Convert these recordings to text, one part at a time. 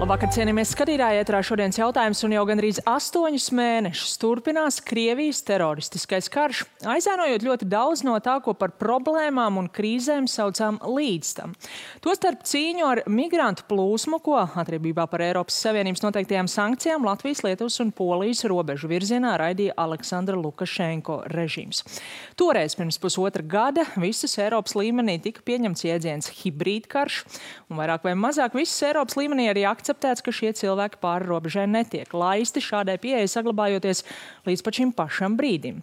Labvakar, cienījamies skatītāji, ēterā šodienas jautājums, un jau gandrīz 8 mēnešus turpinās Krievijas teroristiskais karš, aizēnojot ļoti daudz no tā, ko par problēmām un krīzēm saucām līdz tam. Tostarp cīņu ar migrantu plūsmu, ko atriebībā par Eiropas Savienības noteiktajām sankcijām Latvijas, Lietuvas un Polijas robežu virzienā raidīja Aleksandra Lukašenko režīms. Toreiz pirms pusotra gada visas Eiropas līmenī tika pieņemts jēdziens hibrīdkarš, un vairāk vai mazāk visas Eiropas līmenī arī akceptēts, ka šie cilvēki pāri robežai netiek laisti, šādai pieeja saglabājoties līdz pat šim pašam brīdim.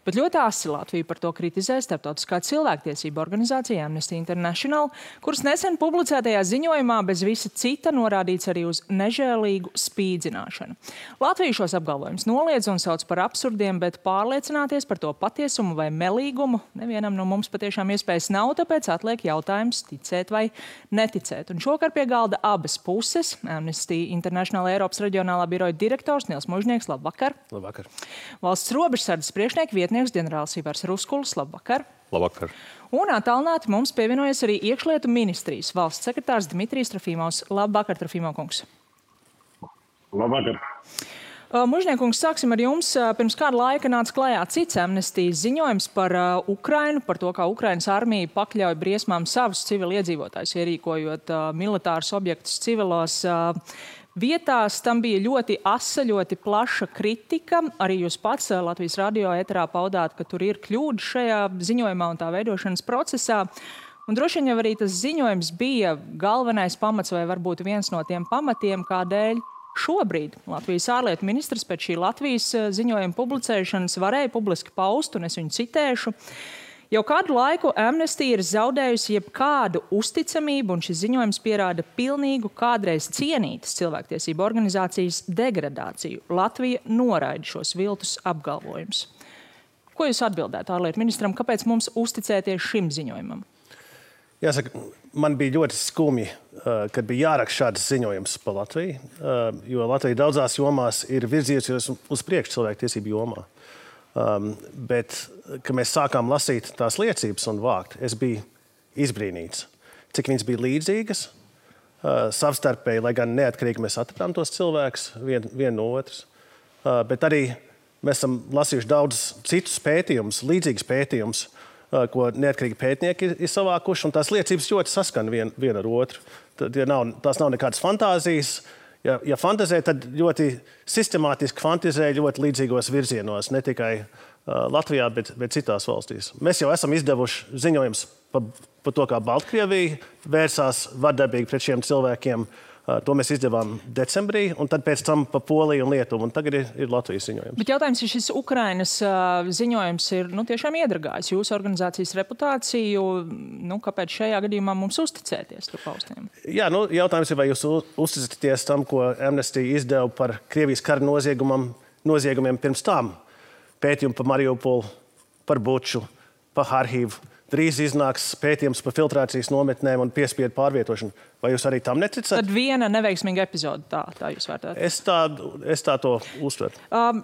Bet ļoti asi Latviju par to kritizē starptautiskā cilvēktiesība organizācija Amnesty International, kuras nesen publicētajā ziņojumā bez visa cita norādīts arī uz nežēlīgu spīdzināšanu. Latvija šos apgalvojumus noliedz un sauc par absurdiem, bet pārliecināties par to patiesumu vai melīgumu nevienam no mums patiešām iespējas nav, tāpēc atliek jautājums ticēt vai neticēt. Un šokar pie galda abas puses. Amnesty International Eiropas reģionālā biroja direktors Nils Mužnieks, labvakar. Labvakar. Valsts robežsardzes priekšnieka vietnieks ģenerālis Ivars Ruskulis, labvakar. Labvakar. Un attālināti mums pievienojas arī iekšlietu ministrijas valsts sekretārs Dmitrijs Trofimovs. Labvakar, Trofimov kungs. Labvakar. Mužniekungs, sāksim ar jums. Pirms kāda laika nāca klajā cits Amnestijas ziņojums par Ukrainu, par to, kā Ukrainas armija pakļauj briesmām savus civiliedzīvotājus, ierīkojot militārus objektus civilos vietās. Tam bija ļoti asa, ļoti plaša kritika. Arī jūs pats Latvijas radio ēterā paudāt, ka tur ir kļūda šajā ziņojumā un tā veidošanas procesā. Un droši vien jau arī tas ziņojums bija galvenais pamats vai varbūt viens no tiem pamatiem, kādēļ šobrīd Latvijas ārlietu ministrs pēc šī Latvijas ziņojuma publicēšanas varēja publiski paust, un es viņu citēšu. Jau kādu laiku Amnesty ir zaudējusi jebkādu uzticamību, un šis ziņojums pierāda pilnīgu kādreiz cienītas cilvēktiesību organizācijas degradāciju. Latvija noraida šos viltus apgalvojumus. Ko jūs atbildētu ārlietu ministram, kāpēc mums uzticēties šim ziņojumam? Jāsaka, man bija ļoti skumji, kad bija jāraksta šāds ziņojums par Latviju, jo Latvija daudzās jomās ir virzījusies uz priekšu cilvēktiesību jomā. Bet, kad mēs sākām lasīt tās liecības un vākt, es biju izbrīnīts, cik viņas bija līdzīgas, savstarpēji, lai gan neatkarīgi mēs atradām tos cilvēkus vien no otras. Bet arī mēs esam lasījuši daudz citus pētījumus, līdzīgus pētījumus, ko neatkarīgi pētnieki ir savākuši, un tās liecības ļoti saskan viena ar otru. Tās nav nekādas fantāzijas. Ja fantazē, tad ļoti sistemātiski fantazē ļoti līdzīgos virzienos, ne tikai Latvijā, bet citās valstīs. Mēs jau esam izdevuši ziņojums par to, kā Baltkrievija vērsās vardarbīgi pret šiem cilvēkiem. To mēs izdevām decembrī, un tad pēc tam pa Poliju un Lietuvu, un tagad ir Latvijas ziņojums. Bet jautājums, ja šis Ukrainas ziņojums ir tiešām iedragājis jūsu organizācijas reputāciju, kāpēc šajā gadījumā mums uzticēties tur paustiem? Jā, jautājums ir, vai jūs uzticaties tam, ko Amnesty izdeva par Krievijas kara noziegumiem pirms tam. Pētījumu par Mariupolu, par Buču, par Harkivu. Drīz iznāks pētījums par filtrācijas nometnēm un piespiedu pārvietošanu. Vai jūs arī tam neticat? Tad viena neveiksmīga epizode, tā jūs vērtējat? Es tā to uztveru.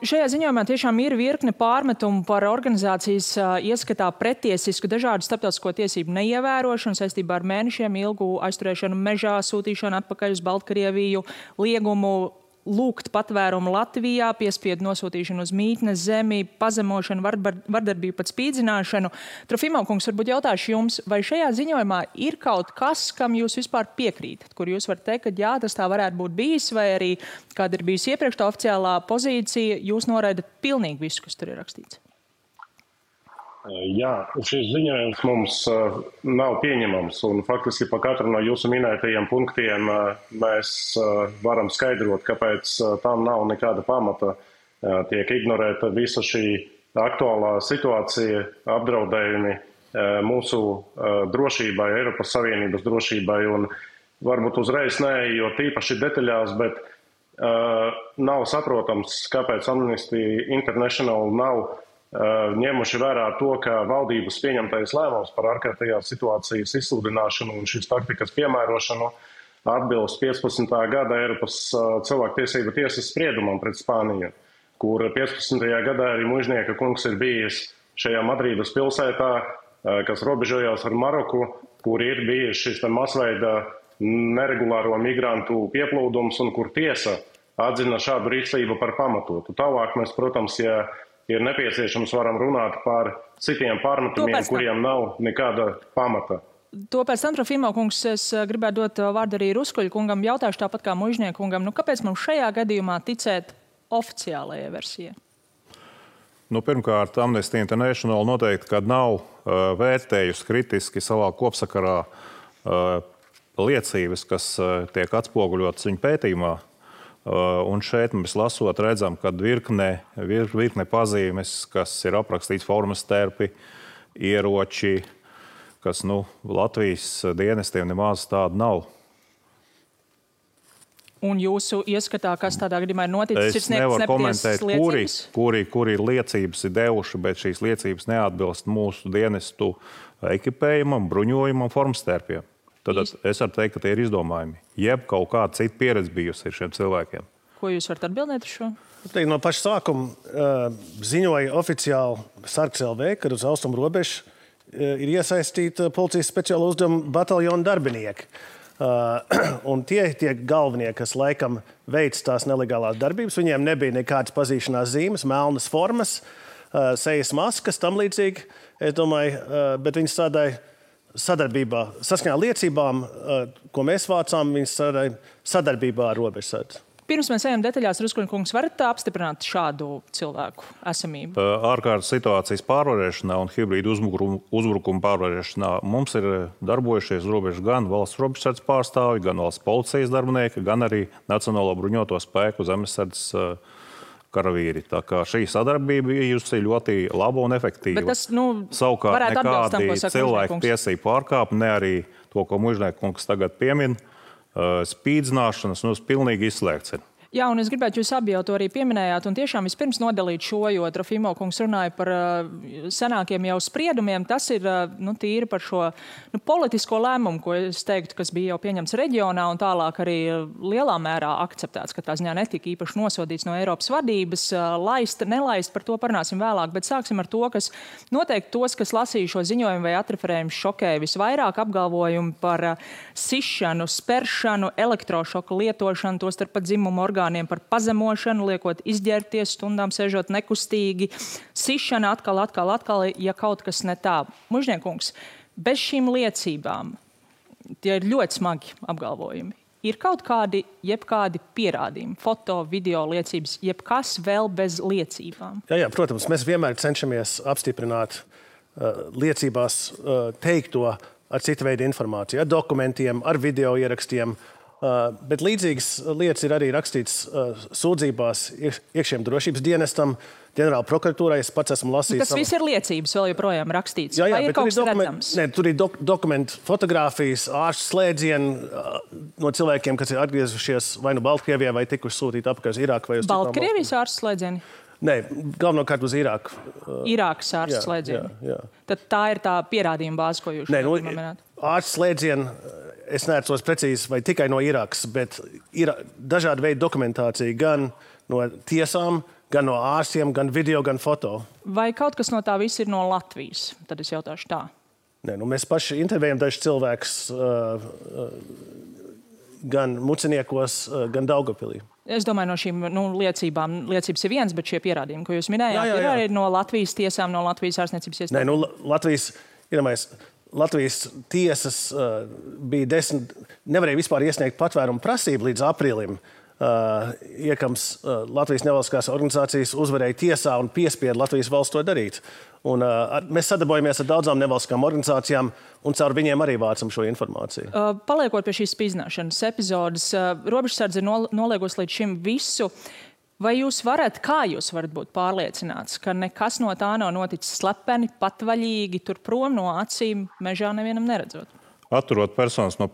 Šajā ziņojumā tiešām ir virkne pārmetumu par organizācijas ieskatā pretiesisku dažādu starptautisko tiesību neievērošanu saistībā ar mēnešiem ilgu aizturēšanu mežā, sūtīšanu atpakaļ uz Baltkrieviju, liegumu lūgt patvērumu Latvijā, piespiedu nosūtīšanu uz mītnes zemi, pazemošanu, vardarbību, pat spīdzināšanu. Trofimov kungs, varbūt jautāšu jums, vai šajā ziņojumā ir kaut kas, kam jūs vispār piekrītat, kur jūs varat teikt, ka jā, tas tā varētu būt bijis, vai arī kāda ir bijusi iepriekš tā oficiālā pozīcija, jūs noraidat pilnīgi visu, kas tur ir rakstīts? Jā, šis ziņojums mums nav pieņemams, un faktiski pa katru no jūsu minētajiem punktiem mēs varam skaidrot, kāpēc tam nav nekāda pamata. Tiek ignorēta visa šī aktuālā situācija, apdraudējumi mūsu drošībai, Eiropas Savienības drošībai, un varbūt uzreiz neejot īpaši detaļās, bet nav saprotams, kāpēc Amnesty International nav ņemuši vērā to, ka valdības pieņemtais lēmums par ārkārtējās situācijas izsludināšanu un šīs taktikas piemērošanu atbilst 15. gada Eiropas cilvēktiesību tiesas spriedumam pret Spāniju, kur 15. gadā arī Mužnieka kungs ir bijis šajā Madrīdas pilsētā, kas robežojās ar Maroku, kur ir bijis šis masveida neregulāro migrantu pieplūdums un kur tiesa atzina šādu rīcību par pamatotu. Tālāk mēs, protams, ja ir nepieciešams, varam runāt par citiem pārmetumiem, kuriem nav nekāda pamata. To pēc tam, Trofimo kungs, es gribētu dot vārdu arī Ruskuļa kungam. Jautāšu tāpat kā Mužnieku kungam, kāpēc mums šajā gadījumā ticēt oficiālajai versijai? Pirmkārt, Amnesty International noteikti, kad nav vērtējusi kritiski savā kopsakarā liecības, kas tiek atspoguļotas viņa pētījumā. Un šeit mēs lasot redzam, ka virkne pazīmes, kas ir aprakstīts formas terpi, ieroči, kas Latvijas dienestiem nemaz tāda nav. Un jūsu ieskatā, kas tādā gadījumā ir noticis, es nevaru komentēt, kuri liecības ir devuši, bet šīs liecības neatbilst mūsu dienestu ekipējumam, bruņojumam, formstērpiem. Tad es varu teikt, ka tie ir izdomājumi. Jeb kaut kāda cita pieredze bijusi ir šiem cilvēkiem. Ko jūs varat atbildēt uz šo? No paša sākuma ziņoja oficiāli Sargs LV, kad uz austrumu robežu ir iesaistīta policijas speciāla uzdevuma bataljona darbinieki. Un tie galvenie, kas laikam veic tās nelegālās darbības, viņiem nebija nekādas pazīšanās zīmes, melnas formas, sejas maskas, tam līdzīgi. Es domāju, bet viņi strādāja sadarbībā, saskaņā liecībām, ko mēs vācām, viņi strādāja sadarbībā ar robežsardzi. Pirms mēs ejam detaļās, Ruskuļa kungs, varat apstiprināt šādu cilvēku esamību? Ārkārtas situācijas pārvarēšanā un hibrīdu uzbrukumu pārvarēšanā mums ir darbojušies robežu gan valsts robežsardzes pārstāvji, gan valsts policijas darbinieki, gan arī Nacionālo bruņoto spēku zemesardzes karavīri. Tā kā šī sadarbība bijusi ļoti laba un efektīva. Bet tas, savukārt nekādi cilvēku tiesību pārkāpumi, ne arī to, ko Mužnieku kungs tagad piemin, spīdzināšanas pilnīgi izslēgts ir. Jā, un es gribētu jūs abi jau to arī pieminējāt, un tiešām vispirms nodalīt šo, jo Trofimo kungs runāja par senākiem jau spriedumiem. Tas ir tīri par šo politisko lēmumu, ko es teiktu, kas bija jau pieņemts reģionā un tālāk arī lielā mērā akceptēts, ka tā ziņā netika īpaši nosodīts no Eiropas vadības. Laist, nelaist, par to parunāsim vēlāk, bet sāksim ar to, kas noteikti tos, kas lasīja šo ziņojumu vai atreferējumu, šokēja visvairāk apgalvojumu par sišanu, speršanu, elektrošoku lietošanu, tostarp pat dzimumu orgānu, par pazemošanu, liekot izģērbties, stundām sēžot nekustīgi, sišana atkal, ja kaut kas ne tā. Mužniekungs, bez šīm liecībām, tie ir ļoti smagi apgalvojumi. Ir kaut kādi, jebkādi pierādījumi, foto, video liecības, jebkas vēl bez liecībām? Jā, protams, mēs vienmēr cenšamies apstiprināt liecībās teikto ar citu veidu informāciju, ar dokumentiem, ar video ierakstiem. Bet līdzīgas lietas ir arī rakstītas sūdzībās iekšējiem drošības dienestam, ģenerāla prokuratūrai. Es pats esmu lasījis. Tas viss ir liecības vēl joprojām rakstīts. Jā, vai ir kaut kas redzams? Nē, tur ir dokumenti, fotogrāfijas, ārstu slēdzieni no cilvēkiem, kas ir atgriezušies vai nu Baltkrievijā, vai tikuši sūtīti apakaļ uz Irāku vai uz Baltkrievijas ārstu slēdzieni? Nē, galvenokārt uz Irāku. Irākas ārstu slēdzieni? Jā. Tad tā ir tā pierādījuma bāze, ko jūs minējāt? Ārstu slēdzieni, es neatceros precīzi, vai tikai no Irākas, bet ir dažādi veidi dokumentācija gan no tiesām, gan no ārstiem, gan video, gan foto. Vai kaut kas no tā viss ir no Latvijas? Tad es jautāšu tā. Nē, mēs paši intervējam dažus cilvēkus gan Muciniekos, gan Daugavpilī. Es domāju, no šīm liecībām, liecības ir viens, bet šie pierādījumi, ko jūs minējāt, ir arī no Latvijas tiesām, no Latvijas ārstniecības iestādēm? Nē, Latvijas tiesas bija 10, nevarēja vispār iesniegt patvērumu prasību līdz aprīlim. Iekams Latvijas nevalstiskās organizācijas uzvarēja tiesā un piespieda Latvijas valsts to darīt. Un, mēs sadarbojamies ar daudzām nevalstiskām organizācijām un caur viņiem arī vācam šo informāciju. Paliekot pie šīs spīdzināšanas epizodes, robežsardze ir noliegusi līdz šim visu. Vai kā jūs varat būt pārliecināts, ka nekas no tā nav noticis slepeni, patvaļīgi, tur prom no acīm, mežā nevienam neredzot? Atturot personas no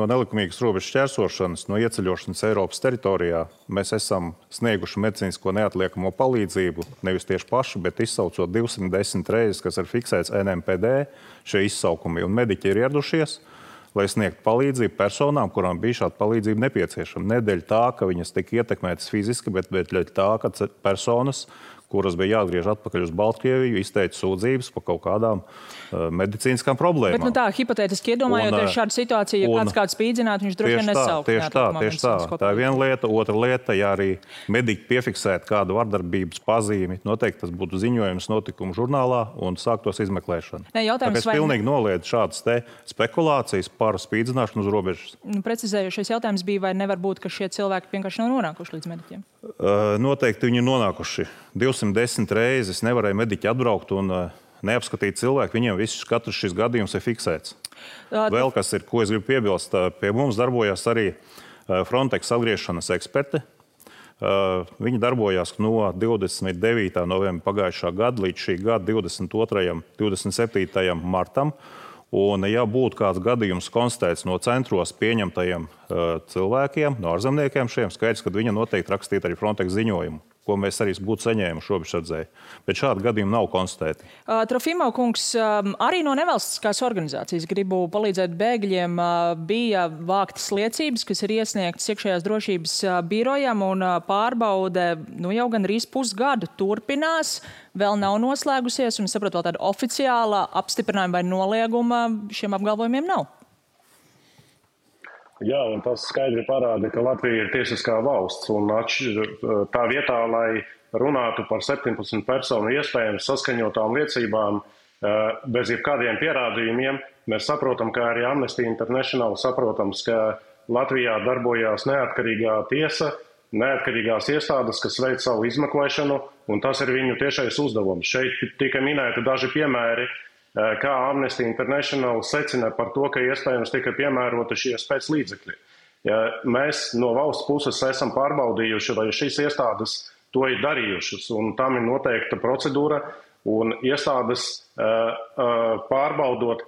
nelikumīgas robežas šķērsošanas, no ieceļošanas Eiropas teritorijā, mēs esam snieguši medicīnisko neatliekamo palīdzību, nevis tieši paši, bet izsaucot 210 reizes, kas ir fiksēts NMPD, šie izsaukumi, un mediķi ir ieradušies, lai sniegtu palīdzību personām, kurām bija šāda palīdzība nepieciešama. Ne dēļ tā, ka viņas tika ietekmētas fiziski, bet dēļ tā, ka personas, kuras bija jāatgriež atpakaļ uz Baltkrieviju, izteica sūdzības par kaut kādām medicīniskām problēmām. Bet tā, hipotētiski iedomājoties šādu situāciju, ja kāds spīdzinātu, viņš droši vien nesauktu. Tieši tā. Tā ir viena lieta. Otra lieta, ja arī mediķi piefiksētu kādu vardarbības pazīmi, noteikti tas būtu ziņojums notikumu žurnālā un sāktos izmeklēšana. Tāpēc pilnīgi noliedz šādas te spekulācijas par spīdzināšanu uz robežas. Precizējušies jautājums bija, vai nevar būt, ka šie cilvēki vienkārši nav nonākuši līdz mediķiem? Noteikti viņi ir nonākuši. 210 reizes nevarēja mediķi atbraukt un neapskatīt cilvēku. Viņiem katrs šis gadījums ir fiksēts. Vēl kas ir, ko es gribu piebilst, pie mums darbojās arī Frontex atgriešanas eksperti. Viņi darbojās no 29. novembra pagājušā gada līdz šī gada 27. martam. Un, ja būtu kāds gadījums konstatēts no centros pieņemtajiem cilvēkiem, no ārzemniekiem šiem, skaidrs, ka viņi noteikti rakstītu arī Frontex ziņojumu, ko mēs arī būtu saņēmuši robežsardzēji. Bet šādi gadījumi nav konstatēti. Trofimov kungs, arī no nevalstiskās organizācijas gribu palīdzēt bēgļiem bija vāktas liecības, kas ir iesniegtas iekšējās drošības birojam, un pārbaude jau gandrīz pusgadu turpinās. Vēl nav noslēgusies, un saprotu, vēl tāda oficiāla apstiprinājuma vai nolieguma šiem apgalvojumiem nav. Jā, un tas skaidri parāda, ka Latvija ir tiesiskā valsts, un tā vietā, lai runātu par 17 personu iespējams saskaņotām liecībām bez jebkādiem pierādījumiem, mēs saprotam, ka arī Amnesty International saprotams, ka Latvijā darbojās neatkarīgā tiesa, neatkarīgās iestādes, kas veic savu izmeklēšanu, un tas ir viņu tiešais uzdevums. Šeit tika minēti daži piemēri, kā Amnesty International secina par to, ka iespējams tika piemērota šie spēclīdzekļi. Ja mēs no valsts puses esam pārbaudījuši, vai šīs iestādes to ir darījušas, un tam ir noteikta procedūra, un iestādes pārbaudot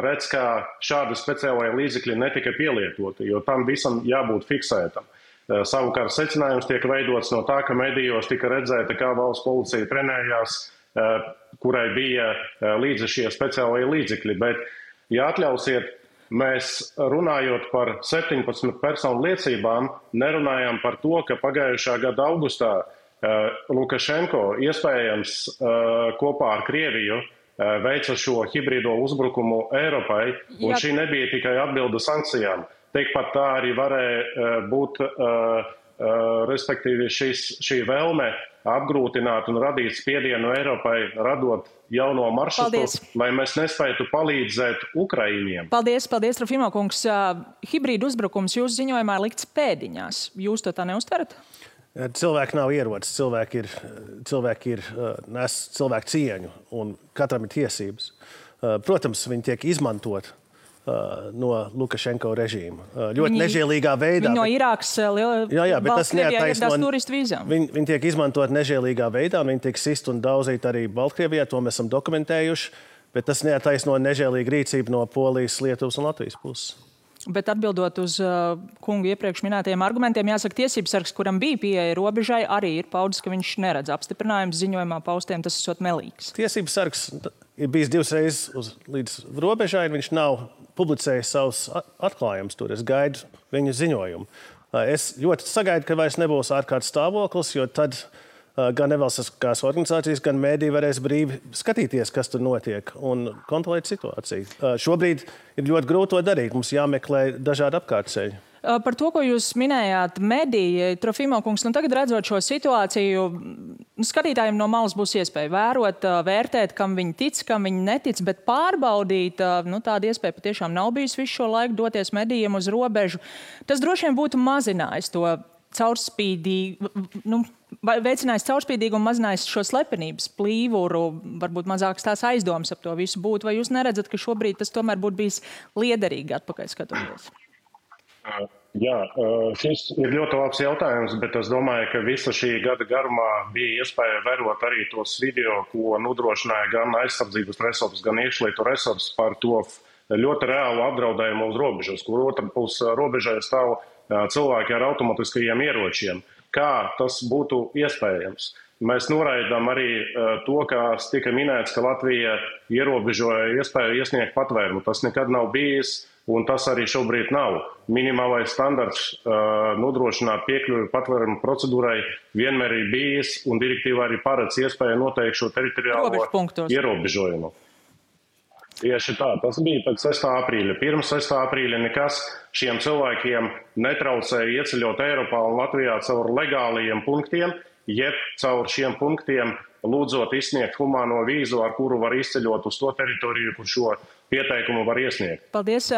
redz, ka šādi speciālai līdzekļi netika pielietoti, jo tam visam jābūt fiksētam. Savukārt secinājums tiek veidots no tā, ka medijos tika redzēta, kā valsts policija trenējās, kurai bija līdzi šie speciālie līdzekļi. Bet, ja atļausiet, mēs runājot par 17 personu liecībām, nerunājam par to, ka pagājušā gada augustā Lukašenko iespējams kopā ar Krieviju veica šo hibrīdo uzbrukumu Eiropai, un šī nebija tikai atbilde sankcijām. Tikpat tā arī varēja būt, respektīvi, šī vēlme apgrūtināt un radīt spiedienu Eiropai, radot jauno maršrutu, lai mēs nespētu palīdzēt Ukraiņiem. Paldies, Trofimov kungs. Hibrīdu uzbrukums jūsu ziņojumā likts pēdiņās. Jūs to tā neuztverat? Cilvēki nav ierocis, cilvēki nes cilvēku cieņu, un katram ir tiesības. Protams, viņi tiek izmantot no Lukašenko režīma. Ļoti nežēlīgā veidā. Viņi no Irākas Baltkrievijā ieradās turistu vīzām. Viņi tiek izmantot nežēlīgā veidā, viņi tiek sist un daudzīt arī Baltkrievijā, to mēs esam dokumentējuši, bet tas neattaisno nežēlīgu rīcību no Polijas, Lietuvas un Latvijas puses. Bet atbildot uz kungu iepriekš minētajiem argumentiem, jāsaka, tiesības sargs, kuram bija pieeja robežai, arī ir paudis, ka viņš neredz apstiprinājumus ziņojumā paustiem, tas esot melīgs. Tiesības sargs ir bijis 2 reizes līdz robežai, un viņš nav publicējis savus atklājumus tur. Es gaidu viņu ziņojumu. Es ļoti sagaidu, ka vairs nebūs ārkārtas stāvoklis, jo tad gan nevalstiskās organizācijas, gan mēdī varēs brīvi skatīties, kas tur notiek un kontrolēt situāciju. Šobrīd ir ļoti grūti to darīt. Mums jāmeklē dažādi apkārtceļi. Par to, ko jūs minējāt, mediji, Trofimov kungs, tagad redzot šo situāciju, skatītājiem no malas būs iespēja vērot, vērtēt, kam viņi tic, kam viņi netic, bet pārbaudīt, tāda iespēja patiešām nav bijusi visu šo laiku doties medijiem uz robežu. Tas droši vien būtu mazinājis to veicinājis caurspīdīgu un mazinājis šo slepenības plīvuru, varbūt mazākas tās aizdomas ap to visu būtu. Vai jūs neredzat, ka šobrīd tas tomēr būtu bijis liederīgi atpakaļ skatoties? Jā, šis ir ļoti labs jautājums, bet es domāju, ka visa šī gada garumā bija iespēja vērot arī tos video, ko nodrošināja gan aizsardzības resursi, gan iekšlietu resursi par to ļoti reālu apdraudējumu uz robežas, kur otra puse robežai stāv cilvēki ar automatiskajiem ieročiem. Kā tas būtu iespējams? Mēs noraidām arī to, kas tika minēts, ka Latvija ierobežoja iespēju iesniegt patvērumu. Tas nekad nav bijis. un tas arī šobrīd nav. Minimālais standarts nodrošināt piekļuvi patvērumu procedūrai vienmēr ir bijis, un direktīvā arī paredz iespēju noteikt šo teritoriālo ierobežojumu. Tieši tā, tas bija pēc 6. aprīļa. Pirms 6. aprīļa nekas šiem cilvēkiem netraucēja ieceļot Eiropā un Latvijā caur legālajiem punktiem, jeb caur šiem punktiem lūdzot izsniegt humāno vīzu, ar kuru var izceļot uz to teritoriju, kur šo pieteikumu var iesniegt. Paldies.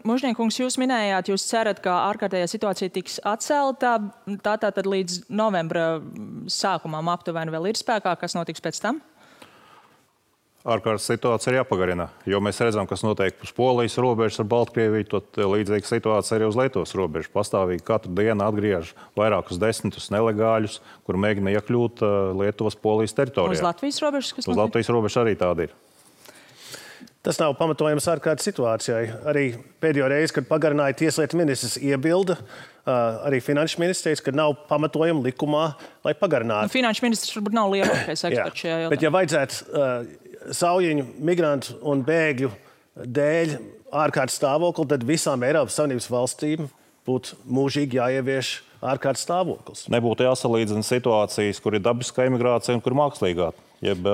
Mužniekungs, jūs minējāt, jūs cerat, ka ārkārtējā situācija tiks atcelta. Tātad līdz novembra sākumam aptuveni vēl ir spēkā. Kas notiks pēc tam? Ārkārtas situācija ir jāpagarina, jo mēs redzam, kas notiek uz Polijas robežas ar Baltkrieviju, tad līdzīga situācija arī uz Lietuvas robežas. Pastāvīgi katru dienu atgriež vairākus desmitus nelegāļus, kur mēģina iekļūt Lietuvas Polijas teritorijā. Uz Latvijas robežas? Kas uz Latvijas robežas arī tāda ir. Tas nav pamatojams ārkārtas situācijai. Arī pēdējo reizi, kad pagarināja tieslietu ministrs iebilda, arī finanšu ministrs teica, ka nav pamatojama likumā, lai pagarinātu. Finanšu ministrs varbūt nav lielākais eksperts šajā jautājumā. Bet ja vajadzētu saujiņu, migrantu un bēgļu dēļ ārkārtas stāvokli, tad visām Eiropas Savienības valstīm būtu mūžīgi jāievieš ārkārtas stāvoklis. Nebūtu jāsalīdzina situācijas, kur ir dabiskā imigrācija un kur mākslīgā, jeb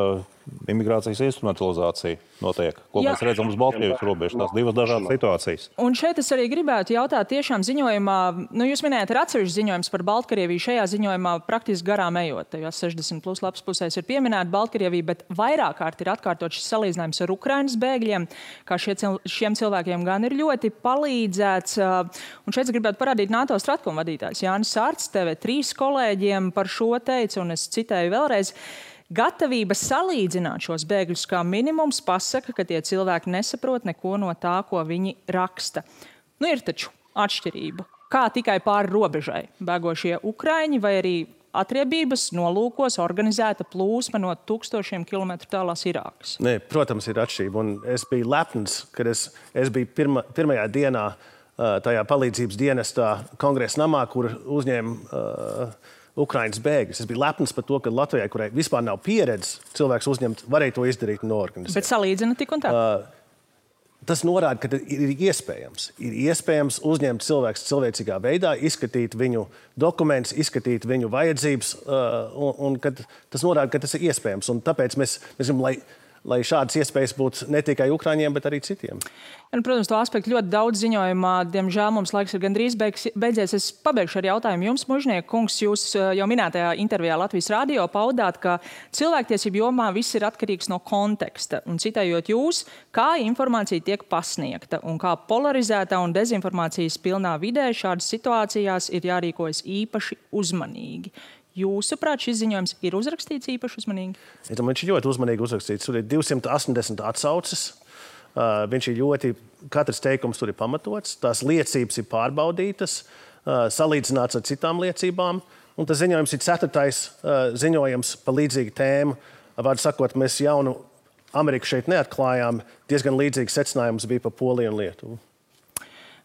imigrācijas instrumentalizācija notiek, ko mēs redzam uz Baltkrievijas robežas. Tās divas dažādas situācijas. Un šeit es arī gribētu jautāt, tiešām ziņojumā, jūs minējāt, ir atsevišķs ziņojums par Baltkrieviju. Šajā ziņojumā praktiski garām ejot, tajās 60+ lapas pusēs ir pieminēta Baltkrievija, bet vairāk kārt ir atkārtot šis salīdzinājums ar Ukrainas bēgļiem, kā šiem cilvēkiem gan ir ļoti palīdzēts. Un šeit es gribētu parādīt NATO Stratkom vadītājs Jānis Sārts, TV3 kolēģiem par šo teica, un es citēju vēlreiz. Gatavība salīdzināt šos bēgļus kā minimums pasaka, ka tie cilvēki nesaprot neko no tā, ko viņi raksta. Ir taču atšķirība. Kā tikai pāri robežai bēgošie ukraiņi vai arī atriebības nolūkos organizēta plūsma no 1000 kilometru tālās Irākas? Nē, protams, ir atšķirība. Un es biju lepns, kad es biju pirmajā dienā tajā palīdzības dienestā Kongresa namā, kur uzņēma Ukrainas bēgļus. Es biju lepns par to, ka Latvijai, kurai vispār nav pieredzes cilvēks uzņemt, varēja to izdarīt un noorganizēt. Bet salīdzina tik un tā? Tas norāda, ka ir iespējams. Ir iespējams uzņemt cilvēku cilvēcīgā veidā, izskatīt viņu dokumentus, izskatīt viņu vajadzības, un tas norāda, ka tas ir iespējams. Un tāpēc mēs gribam, lai šādas iespējas būtu ne tikai Ukraiņiem, bet arī citiem. Protams, to aspektu ļoti daudz ziņojumā. Diemžēl mums laiks ir gandrīz beidzies. Es pabeigšu ar jautājumu jums, Mužnieka kungs. Jūs jau minētajā intervijā Latvijas radio paudāt, ka cilvēktiesību jomā viss ir atkarīgs no konteksta. Un citējot jūs, kā informācija tiek pasniegta un kā polarizētā un dezinformācijas pilnā vidē šādas situācijās ir jārīkojas īpaši uzmanīgi. Jūsuprāt, šis ziņojums ir uzrakstīts īpaši uzmanīgi? Es domāju, viņš ir ļoti uzmanīgi uzrakstīts. Tur ir 280 atsauces. Viņš ir ļoti, katrs teikums tur ir pamatots. Tās liecības ir pārbaudītas, salīdzināts ar citām liecībām. Un tas ziņojums ir 4. ziņojums par līdzīgu tēmu. Vārdu sakot, mēs jaunu Ameriku šeit neatklājām. Diezgan līdzīgs secinājums bija par Poliju un Lietuvu.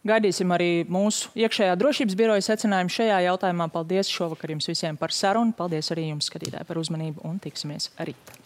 Gaidīsim arī mūsu iekšējā drošības biroja secinājumu šajā jautājumā. Paldies šovakar jums visiem par sarunu. Paldies arī jums, skatītāji, par uzmanību un tiksimies rīt.